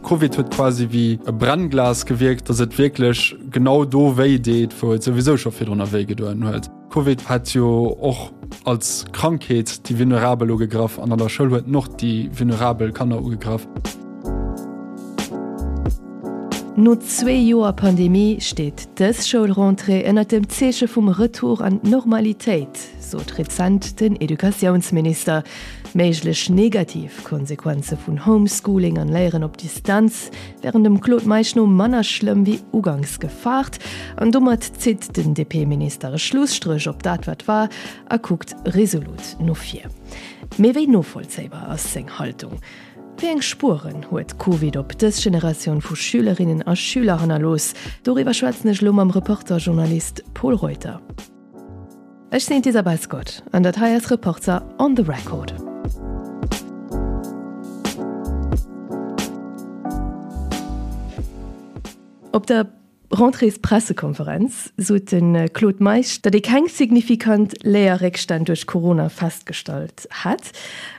Covid huet quasi wéi e Brennglas gewierkt, datt et wierklech genau do wéi deet, wou et souwisou scho virdrunner wéi gedoen huet. Covid hat jo och als Krankheet déi Vulnerabel ugegraff an an der Schoul huet en och déi vulnerabel Kanner ugegraff. No zwee Joer Pandemie steet dës Schoulrentrée ënnert dem Zeeche vum Retour an d'Normalitéit, sot rezent den Educatiounsminister. Méiglech negativ Konsequenze vun Homeschooling an Léieren op Distanz wären dem Claude Meisch no manner schlëmm wéi uganks gefaart. An domat zitt den DP-Minister e Schlusstréch op dat wat war a kuckt resolut no vir. Mee wéi novollzéibar ass seng Haltung? Wéi eng Spueren huet Covid op dës Generatioun vu Schülerinnen a Schüler hannerlooss? Doriwwer schwätzen ech elo mam Reporter-Journalist Pol Reuter. Ech sinn d'Isabel Scott an dat hei ass Reporter on the Record. Op der Rentréespressekonferenz sot de Claude Meisch, datt ee keng signifikant Léierréckstänn duerch Corona festgestallt hätt.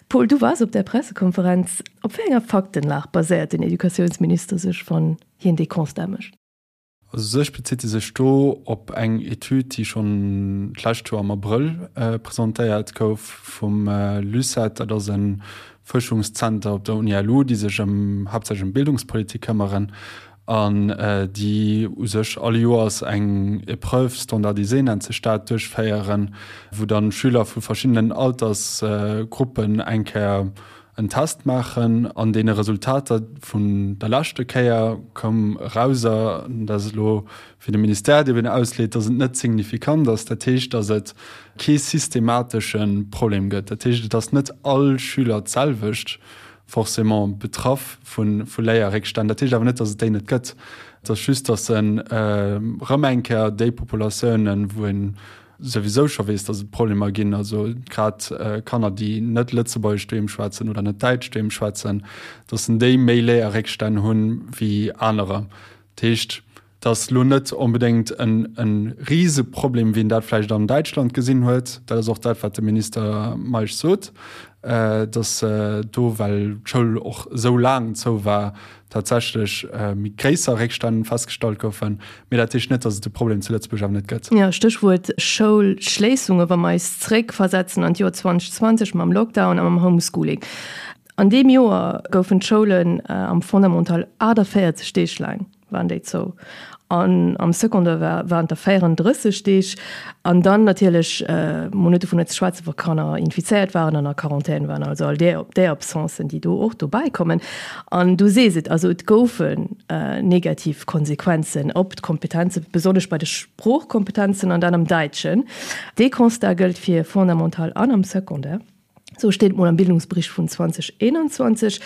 Paul, du waars op där Pressekonferenz. Op wéi enger Faktenlag baséiert den Educatiounsminister sech, wann hien dee Constat mécht? Also u sech bezitt e sech do op eng Etüd, déi schonn d'lescht Joer am Abrëll presentéiert gouf vum LUCET. Dat ass e Fuerschungszenter op der Uni LU, déi sech ëm haaptsächlech ëm Bildungspolitik këmmeren. an déi u sech all Joers eng Épreuve standardisée, nennt sech dat, duerchféieren, wou dann Schüler vu verschiddenen Altersgruppen eng Kéier en Test maachen. An deene Resultater vun der leschte Kéier koum eraus, an dat ass elo fir de Ministère deen ausleet, datt et net signifikant ass, dat heescht, datt et kee systematesche Problem gëtt. Dat heescht, et ass net all Schüler d'selwecht forcément betraff vu Léierréckstänn. Dat heescht awer net, datt et déi net gëtt. Et ass just, datt en erëm eng Kéier déi Populatiounen, wou ee souwisou scho weess, datt et Problemer ginn, also grad Kanner, déi net Lëtzebuergesch doheem schwätzen oder net Däitsch doheem schwätzen, datt en déi méi Léierréckstänn hunn wéi anerer. Dat heescht, Et ass elo net onbedéngt e Riseproblem, wéi een dat vläicht an Däitschland gesinn huet. Dat ass och dat, wat de Minister Meisch sot, datt do, well d'Schoul och esou laang zou war, tatsächlech méi gréisser Réckstänn festgestallt goufen. Mee dat heescht net, datt et de Problem zu Lëtzebuerg awer net gëtt. Jo, Stéchwuert Schoulschléissunge, wa mer eis zréckversetzen an d'Joer 2020 mam Lockdown a mam Homeschooling. An deem Joer goufen d'Schoulen am Fondamental 48 Deeg laang waren déi zou an am Secondaire war waren der 34 Deeg an dann natierlech mol net dovunner ze schwätzen, wa Kanner infizéiert waren an a Quarantän waren, also all déi déi Absencen, déi do och dobäi kommen. An du sees et, also et goufen negativ Konsequenzen op d'Kompetenzen, besonnesch bei de Sproochkompetenzen an dann am Däitschen. Dee Constat gëllt fir Fondamental an am Secondaire. Sou steet et mol am Bildungsbericht vun 2021.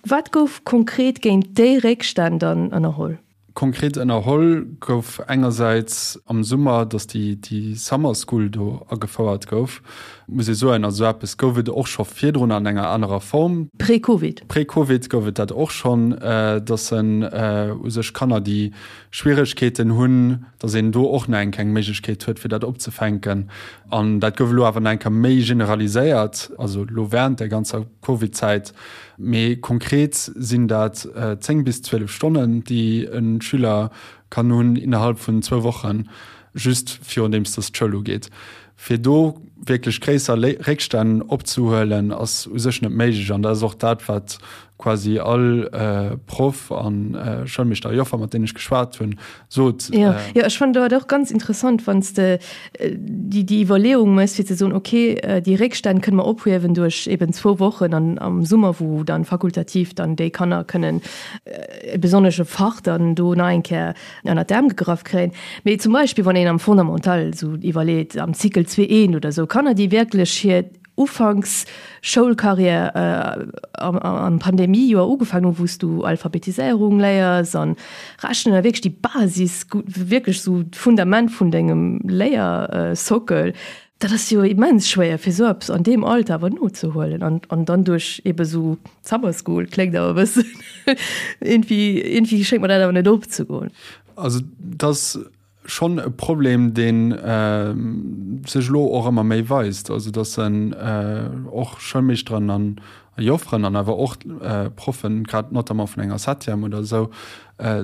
Wat gouf konkret géint déi Réckstänn dann ënnerholl? Konkret ënnerholl gouf engersäits am Summer, datt déi déi Summer School do agefouert gouf. Muss ee soen, also esou eppes gouf et och scho virdrun an enger anerer Form. Pré-Covid? Pré-Covid gouf et dat och schonn, datt en u sech Kanner, déi Schwieregkeeten hunn, datt een do och nach eng keng Méiglechkeet huet, fir dat opzefänken. An dat gouf elo awer nach eng Kéier méi generaliséiert, also elo während der ganzer Covid-Zäit. Mee konkret sinn dat 10 bis 12 Stonnen, déi e Schüler kann hunn innerhalb vun zwou Wochen, just virundeems dass d'Schoul ugeet. Fir do wierklech gréisser Réckstänn opzehuelen, ass u sech net méiglech. An dat ass och dat, wat quasi all Proff a Schoulmeeschter a Joffer, mat deenen ech geschwat hunn, sot. Jo, jo, ech fannen dat och ganz interessant, wann s de déi déi Iwwerleeung méchs, fir ze soen, okay, déi Réckstänn kënne mer ophiewen duerch eben zwou Wochen an am Summer, wou dann fakultativ dann déi Kanner kënnen e besonnesche Fach dann do nach eng Kéier ënnert d'Äerm gegraff kréien. Mee zum Beispill, wann een am Fondamental esou iwwerleet, am Cycle zwee eent oder esou, Kanner, déi wierklech hir Ufanks-Schoulcarrière am Pandemiejoer ugefaangen hunn, wou s du Alphabetiséierung léiers an Rechnen a wierklech déi Basis, wierklech esou d'Fundament vun dengem Léiersockel, dat ass jo immens schwéier, fir esou eppes an deem Alter awer nozehuelen an an dann duerch ebe esou Summer School, kléngt awer e bëssen, iergendwéi, iergendwéi schéngt mer dat awer net opzegoen. Also et ass. schonn e Problem, dee sech elo och ëmmer méi weist, also datt en och Schoulmeeschteren an Jofferen an awer och Proffen, grad notamment vun enger Septième oder esou,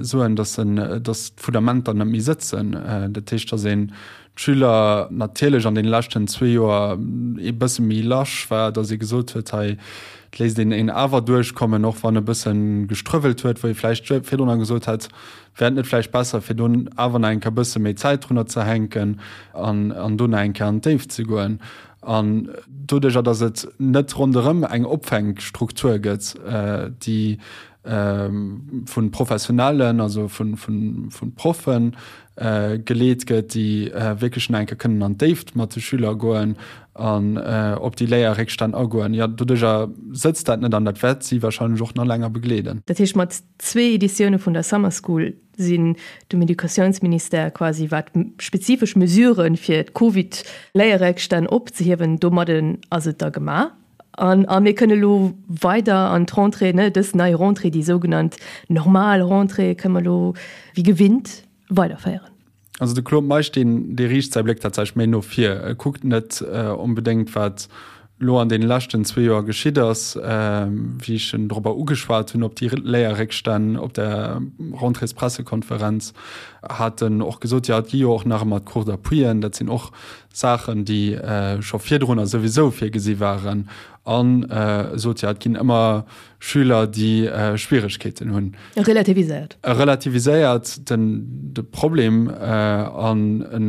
soen, datt en, datt d'Fundamenter net méi sëtzen. Dat heescht, datt een d'Schüler natierlech an deene leschten zwee Joer ee bësse méi lasch war, datt ee gesot huet, hei, et léisst een een awer duerchkommen, och wann e bësse gestrëwwelt huet, wou ee vläicht virdrunner gesot hätt, Wär et net vläicht besser, fir do awer nach eng Kéier e bësse méi Zäit drunner ze hänken an an do nach eng Kéier an d'Déift ze goen? An doduerjer, datt et net ronderëm eng Opfänkstruktur gëtt, déi vu Professionellen, also vu Proffen geleet gëtt, déi wierklech nach eng Kéier kënnen an d'Déift mat de Schüler goen an op déi Léierréckstänn agoen, jo, doduerjer sëtzt dat net an dat wäert si wahrscheinlech och nach länger begleeden. Dat heescht, mat Zwee Editioune vun der Summer School sinn dem Educatiounsministère quasi, wat spezifesch Mesuren fir d'Covid-Léierréckstänn opzehiewen, domadden ass et da gemaach. An a mir kënne lo weider an d'Rentrée, ne, dës nei Rentrée, déi sougenannt normal Rentrée, kënne mer lo wéi gewinnt weiderféieren. Also de Claude Meisch, deen, dee riicht säi Bléck tatsächlech méi no vir. E kuckt net onbedéngt, wat elo an deene leschten zwee Joer geschitt ass, wéi ech en dorobber ugeschwat hunn, op déi Léierréckstänn op der Rentréespressekonferenz, hat en och gesot, jo, et gi jo och nach ëmmer d'Cours d'appuien, dat sinn och Saachen, déi scho virdrunner souwisou virgesi waren. An e sot, jo, et ginn ëmmer Schüler, déi Schwieregkeeten hunn. E relativiséiert. E relativiséiert den, de Problem an e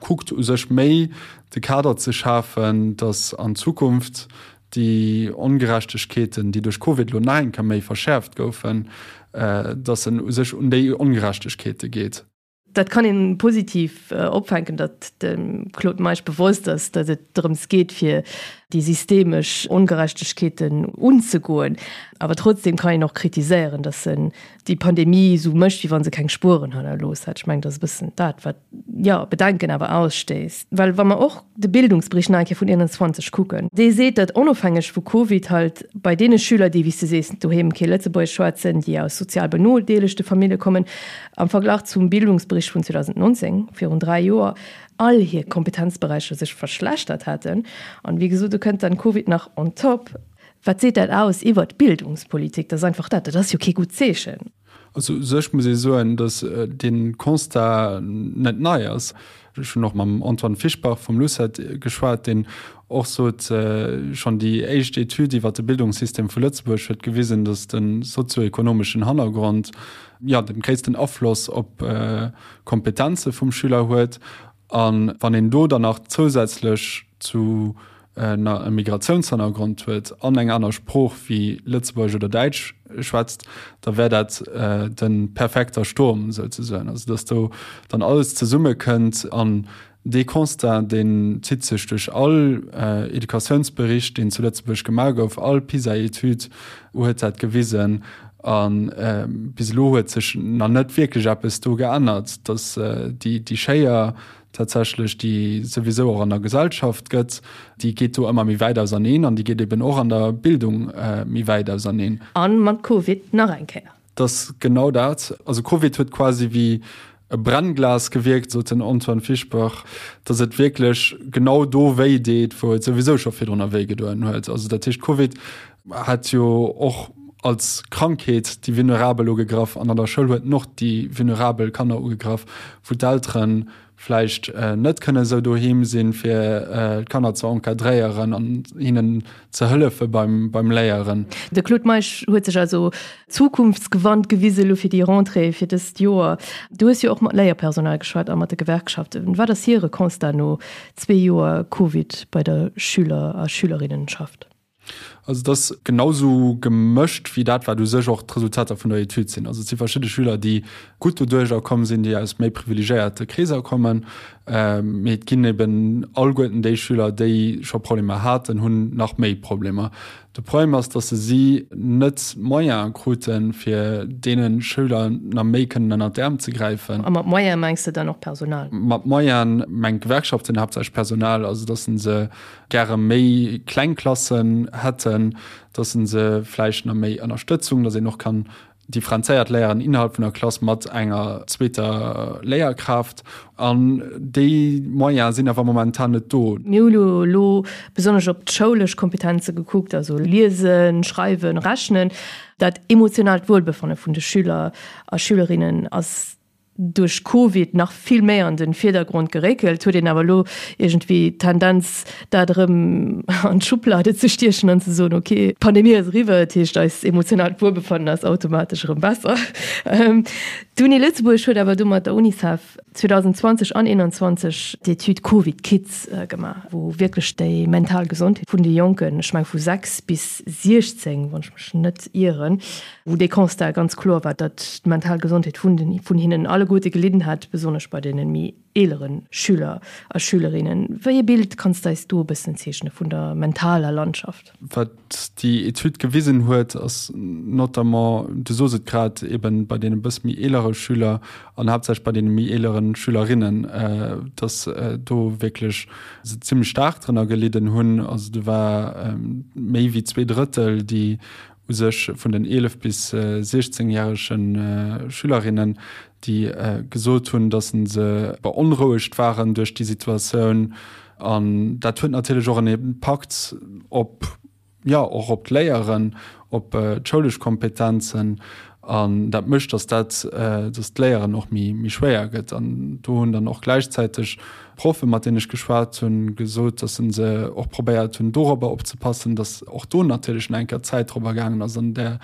kuckt u sech méi, de Kader ze schafen, datt an Zukunft déi Ongerechtegkeeten, déi duerch Covid elo nach eng Kéier méi verschäerft goufen, datt en u sech un déi Ongerechtegkeete geet. Dat kann een positiv opfänken, datt dem Claude Meisch bewosst ass, datt et drëms geet, fir déi systemesch Ongerechtegkeeten unzegoen. Awer trotzdeem kann een och kritiséieren, datt en déi Pandemie esou mécht, wéi wa se keng Spueren hannerlooss hätt. Ech mengen, dat ass e bëssen dat, wat, jo, Bedenken awer ausstéisst. Well wa mer och de Bildungsbericht nach eng Kéier vun 21 kucken, dee seet, datt onofhängeg vu Covid halt bei deene Schüler, déi, wéi s de sees, doheem kee Lëtzebuergesch schwätzen, déi aus sozial benodeelegte Famille kommen, am Verglach zum Bildungsbericht vun 2019, virun dräi Joer, all hir Kompetenzberäicher sech verschlechtert hätten. An, wéi gesot, do kënnt dann Covid nach on top. Wat seet dat aus iwwert d'Bildungspolitik? Dat ass einfach dat, dat ass jo kee gutt Zeechen. Also u sech muss ee soen, datt dee Constat net nei ass. Ech hunn och mam Antoine Fischbach vum LUCET geschwat, deen och sot, schonn déi éischt Etüd iwwer de Bildungssystem vu Lëtzebuerg huet gewisen, datt de sozioekonomeschen Hannergrond, jo, de gréissten Afloss op d'Kompetenze vum Schüler huet. A wann een do dann nach zousätzlech zu e Migratiounshannergrond huet an eng aner Sprooch wéi Lëtzebuergesch oder Däitsch schwätzt, da wär dat de perfekter Sturm souzesoen. Also datt do dann alles zesummekënnt an dee Constat, deen zitt sech duerch all Educatiounsbericht, deen zu Lëtzebuerg gemaach gouf, all PISA-Etüd huet dat gewisen. A bis elo huet sech nach net wierklech eppes do geännert, datt déi Schéier tatsächlech, déi souwisou och an der Gesellschaft gëtt, déi geet do ëmmer méi wäit auserneen an déi geet eben och an der Bildung méi wäit auserneen. A mat Covid nach eng Kéier. Et ass genau dat. Also Covid huet quasi wéi e Brennglas gewierkt, sot den Antoine Fischbach, datt et wierklech genau do wéi deet, wou et souwisou scho virdrunner wéi gedoen huet. Also dat heescht, Covid hat jo och als Krankheet déi Vulnerabel ugegraff an an der Schoul huet en och déi vulnerabel Kanner ugegraff, wou d'Eltere vläicht net kënne sou doheem sinn, fir d'Kanner ze encadréieren an hinnen ze hëllefe beim, beim Léieren. De Claude Meisch huet sech also zukunftsgewannt gewise elo fir déi Rentrée fir dëst Joer. Du hues jo och mat Léierpersonal geschwat a mat de Gewerkschaften. Wat ass hire Constat no zwee Joer Covid bei der Schüler a Schülerinnenschaft? Also et ass genau sou gemëscht wéi dat, wat u sech och d'Resultater vun der Etüd sinn. Also et si verschidde Schüler, déi gutt doduercher komm sinn, déi aus méi privilegiéierte Kreeser kommen. Mee et ginn eben alleguerten déi Schüler, déi scho Problemer haten, hunn nach méi Problemer. De Problem ass, datt se si net d'Moyene kruten, fir deene Schüler nach méi kënnen ënnert d'Äerm ze gräifen. A mat Moyene mengs de dann och Personal? Mat Moyene mengt d'Gewerkschaften haaptsächlech Personal, also datt se gäre méi kleng Klassen hätten, dass se vläicht nach méi Ënnerstëtzung, dass een och kann. Differenzéiert Léieren innerhalb vun der Klass mat enger zweeter Léierkraaft. An déi Moyene sinn awer momentan net do. Mir hu jo elo besonnesch op d'schoulesch Kompetenze gekuckt, also Liesen, Schreiwen, Rechnen. Dat emotionaalt Wuelbefanne vun de Schüler a Schülerinnen ass duerch Covid nach vill méi an den Virdergrond geréckelt, huet een awer elo iergendwéi d'Tendenz, dat erëm an d'Schublade ze stiechen an ze soen, ok, d'Pandemie ass eriwwer, dat heescht eist emotionaalt Wuelbefannen ass automatesch erëm besser. D'Uni Lëtzebuerg huet awer du mat der Unicef 2020 an 2021 d'Etüd Covid Kids gemaach, wou wierklech déi mental Gesondheet vun de Jonken, ech meng vu 6 bis 16, wann ech mech net ieren, wou dee Constat ganz kloer war, datt d'mental Gesondheet vun den vun hinnen alleguerte gelidden hätt, besonnesch bei deene méi eelere Schüler a Schülerinnen. Wéi e Bild kanns de eis do e bëssen zeechne vun der mentaler Landschaft? Wat déi Etüd gewisen huet, ass notamment, du sos et grad, eben bei deene bësse méi eelere Schüler an haaptsächlech bei deene méi eelere Schülerinnen, datt do wierklech se zimmlech staark drënner gelidden hunn. Also do war méi wéi 2/3, déi u sech vun den 11 bis 16 järege Schülerinnen, déi gesot hunn, datt se beonrouegt waren duerch déi Situatioun. An dat huet natierlech och en Impakt op, jo, och op d'Léieren, op d'schoulesch Kompetenzen. An dat mécht, datt dat, datt d'Léieren och méi, méi schwéier gëtt. An do hunn dann och gläichzäiteg Proffen, mat deenen ech geschwat hunn, gesot, datt se och probéiert hunn, dorobber opzepassen, datt och do natierlech nach eng Kéier Zäit drobber gaangen ass an där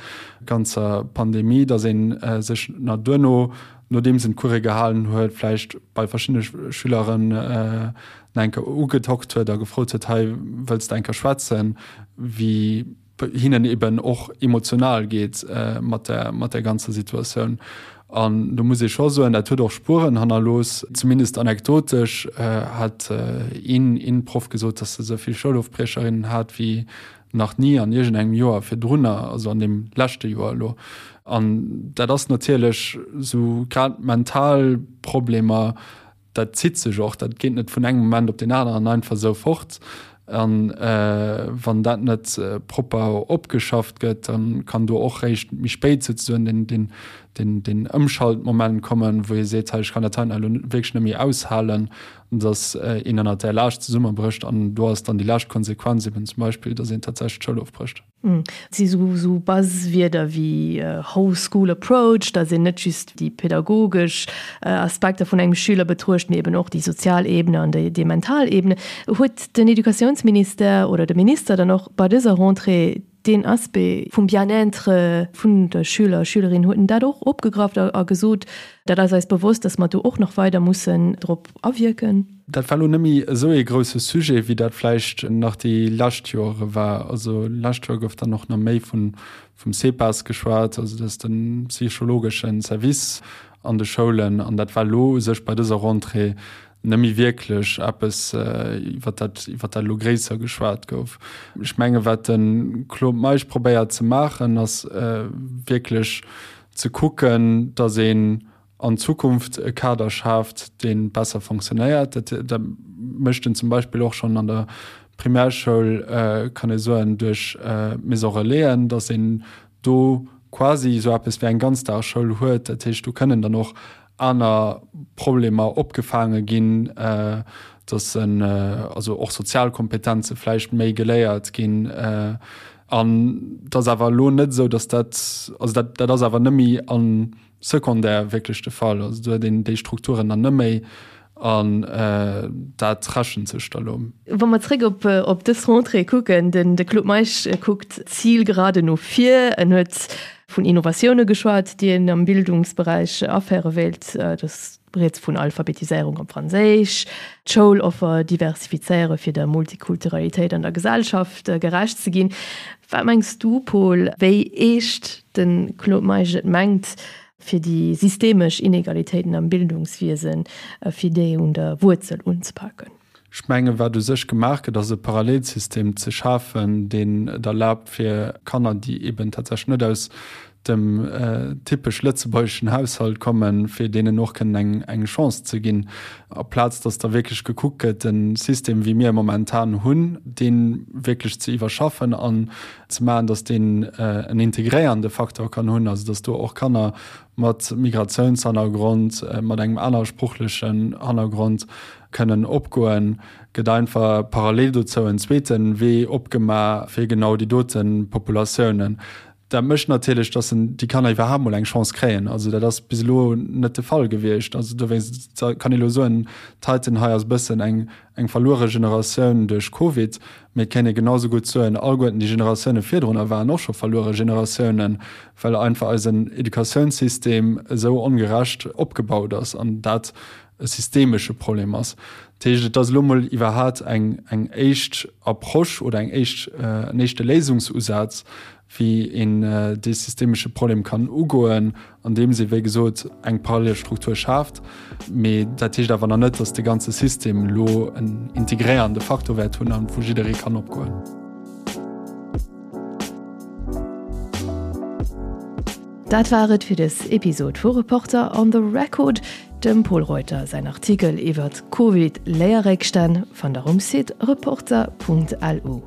ganzer Pandemie, datt ee sech nach duerno, nodeems en d'Course gehalen huet, vläicht bei verschiddene Schüleren nach eng Kéier ugedockt huet a gefrot huet, Hei, wëlls de eng Kéier schwätzen, wéi hinnen eben och emotional geet mat der, mat der ganzer Situatioun. An do muss ee scho soen, dat huet och Spueren hannerlooss. Zumindest anekdotesch hat een, een Proff gesot, datt e sou vill Schoulofbriecherinnen hat wéi nach ni an iergendengem Joer virdrunner, also an deem leschte Joer elo. An dat ass natierlech sou grad mental Problemer, Dat zitt sech och, dat geet net vun engem Moment op deen aneren einfach esou fort. An wann dat net propper opgeschafft gëtt, da kann do och réischt méi spéit souzesoen den, den, den, den Ëmschaltmoment kommen, wou ee seet, hei ech kann dat hei elo wierklech net méi aushalen, datt een ënnert där Laascht zesummebrécht. An do ass dann déi lescht Konsequenz eben zum Beispill, datt een tatsächlech d'Schoul ofbrécht. Et si sou Buzzwierder wéi Whole School Approach, datt een net just déi pedagogesch Aspekter vun engem Schüler betruecht, mee eben och déi sozial Ebene an déi mental Ebene. Huet den Educatiounsministère oder de Minister dann och bei dëser Rentrée deen Aspect vum Bien-être vun de Schüler a Schülerinnen, huet en dat och opgegraff a gesot, dat ass eis bewosst, datt mer do och nach weider mussen drop awierken? Dat war elo net méi esou ee grousse Sujet, wéi dat vläicht nach déi lescht Joere war. Also lescht Joer gouf dann och nach méi vun, vum CEPAS geschwat, also dat ass de psychologesche Service an de Schoulen. An dat war elo u sech bei dëser Rentrée net méi wierklech eppes, iwwer dat, iwwer dat elo gréisser geschwat gouf. Ech menge wat de Claude Meisch probéiert ze maachen, ass wierklech ze kucken, datt een an Zukunft e Kader schaaft, dee besser fonctionnéiert. Dat, dat mécht en zum Beispill och schonn an der Primärschoul, kann ee soen, duerch Maison Relaisen, datt een do quasi esou eppes wéi eng Ganzdagsschoul huet. Dat heescht, do kënnen dann och aner Problemer opgefaange ginn, datt en, also och sozial Kompetenze vläicht méi geléiert ginn. An et ass awer elo net esou, datt dat, also dat, dat ass awer net méi an Secondaire wierklech de Fall. Also do huet een déi Strukturen dann net méi an dat rechent sech da lo. Wa mer zréck op op dës Rentrée kucken, den de Claude Meisch kuckt zielgerade no vir. En huet vun Innovatioune geschwat, déi een am Bildungsberäich aféiere wéilt. Et ass rieds vun Alphabetiséierung op Franséisch, d'Schouloffer diversifizéiere fir der Multikulturalitéit an der Gesellschaft gerecht ze ginn. Wat mengs du, Paul, wéi eescht de Claude Meisch et mengt, fir déi systemesch Inegalitéiten am Bildungswiesen, fir déi un der Wuerzel unzepaken? Ech mengen, wat u sech gemaach gëtt, ass e Parallelsystem ze schafen, deen et erlaabt fir Kanner, déi eben tatsächlech net aus. dem typesch lëtzebuergeschen Haushalt kommen, fir deenen och kënnen eng eng Chance ze ginn, aplaz datt da wierklech gekuckt gëtt, de System, wéi mir e momentan hunn, dee wierklech ze iwwerschaffen an ze maachen, datt deen en integréierende Faktor kann hunn, also datt do och Kanner mat Migratiounshannergrond, mat engem anere sproochlechen Hannergrond kënnen opgoen, gëtt einfach parallel dozou en zweete Wee opgemaach fir genau déi dote Populatiounen. Dat mécht natierlech, dass en déi Kanner iwwerhaapt mol eng Chance kréien. Also dat ass bis elo net de Fall gewiescht. Also dowéinst kann ee elo soen, d'heiten hei ass e bëssen eng eng verluere Generatioun duerch Covid. Mee et kéint ee genau sou gutt soen, alleguerten déi Generatioune virdrunner waren och scho verluere Generatiounen, well einfach eisen Educatiounssystem esou ongerecht opgebaut ass an dat e systemesche Problem ass. Dat heescht, et ass elo mol iwwerhaat eng eng éischt Approche oder eng éischt en éischte Léisungsusaz, wéi een dee systemesche Problem kann ugoen, andeems ee wéi gesot eng parallel Struktur schaaft. Mee dat heescht awer nach net, datt de ganze System elo en integréierende Faktor wäert hunn an wou jidderee kann opgoen. Dat war et fir dës Episod vu Reporter on the Record. Dem Pol Reuter säin Artikel iwwer d'Covid-Léierréckstänn fannt der um Site reporter.lu.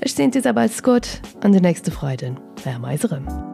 Ech sinn d'Isabel Scott an den nächste Freiden héiere mer eis erëm.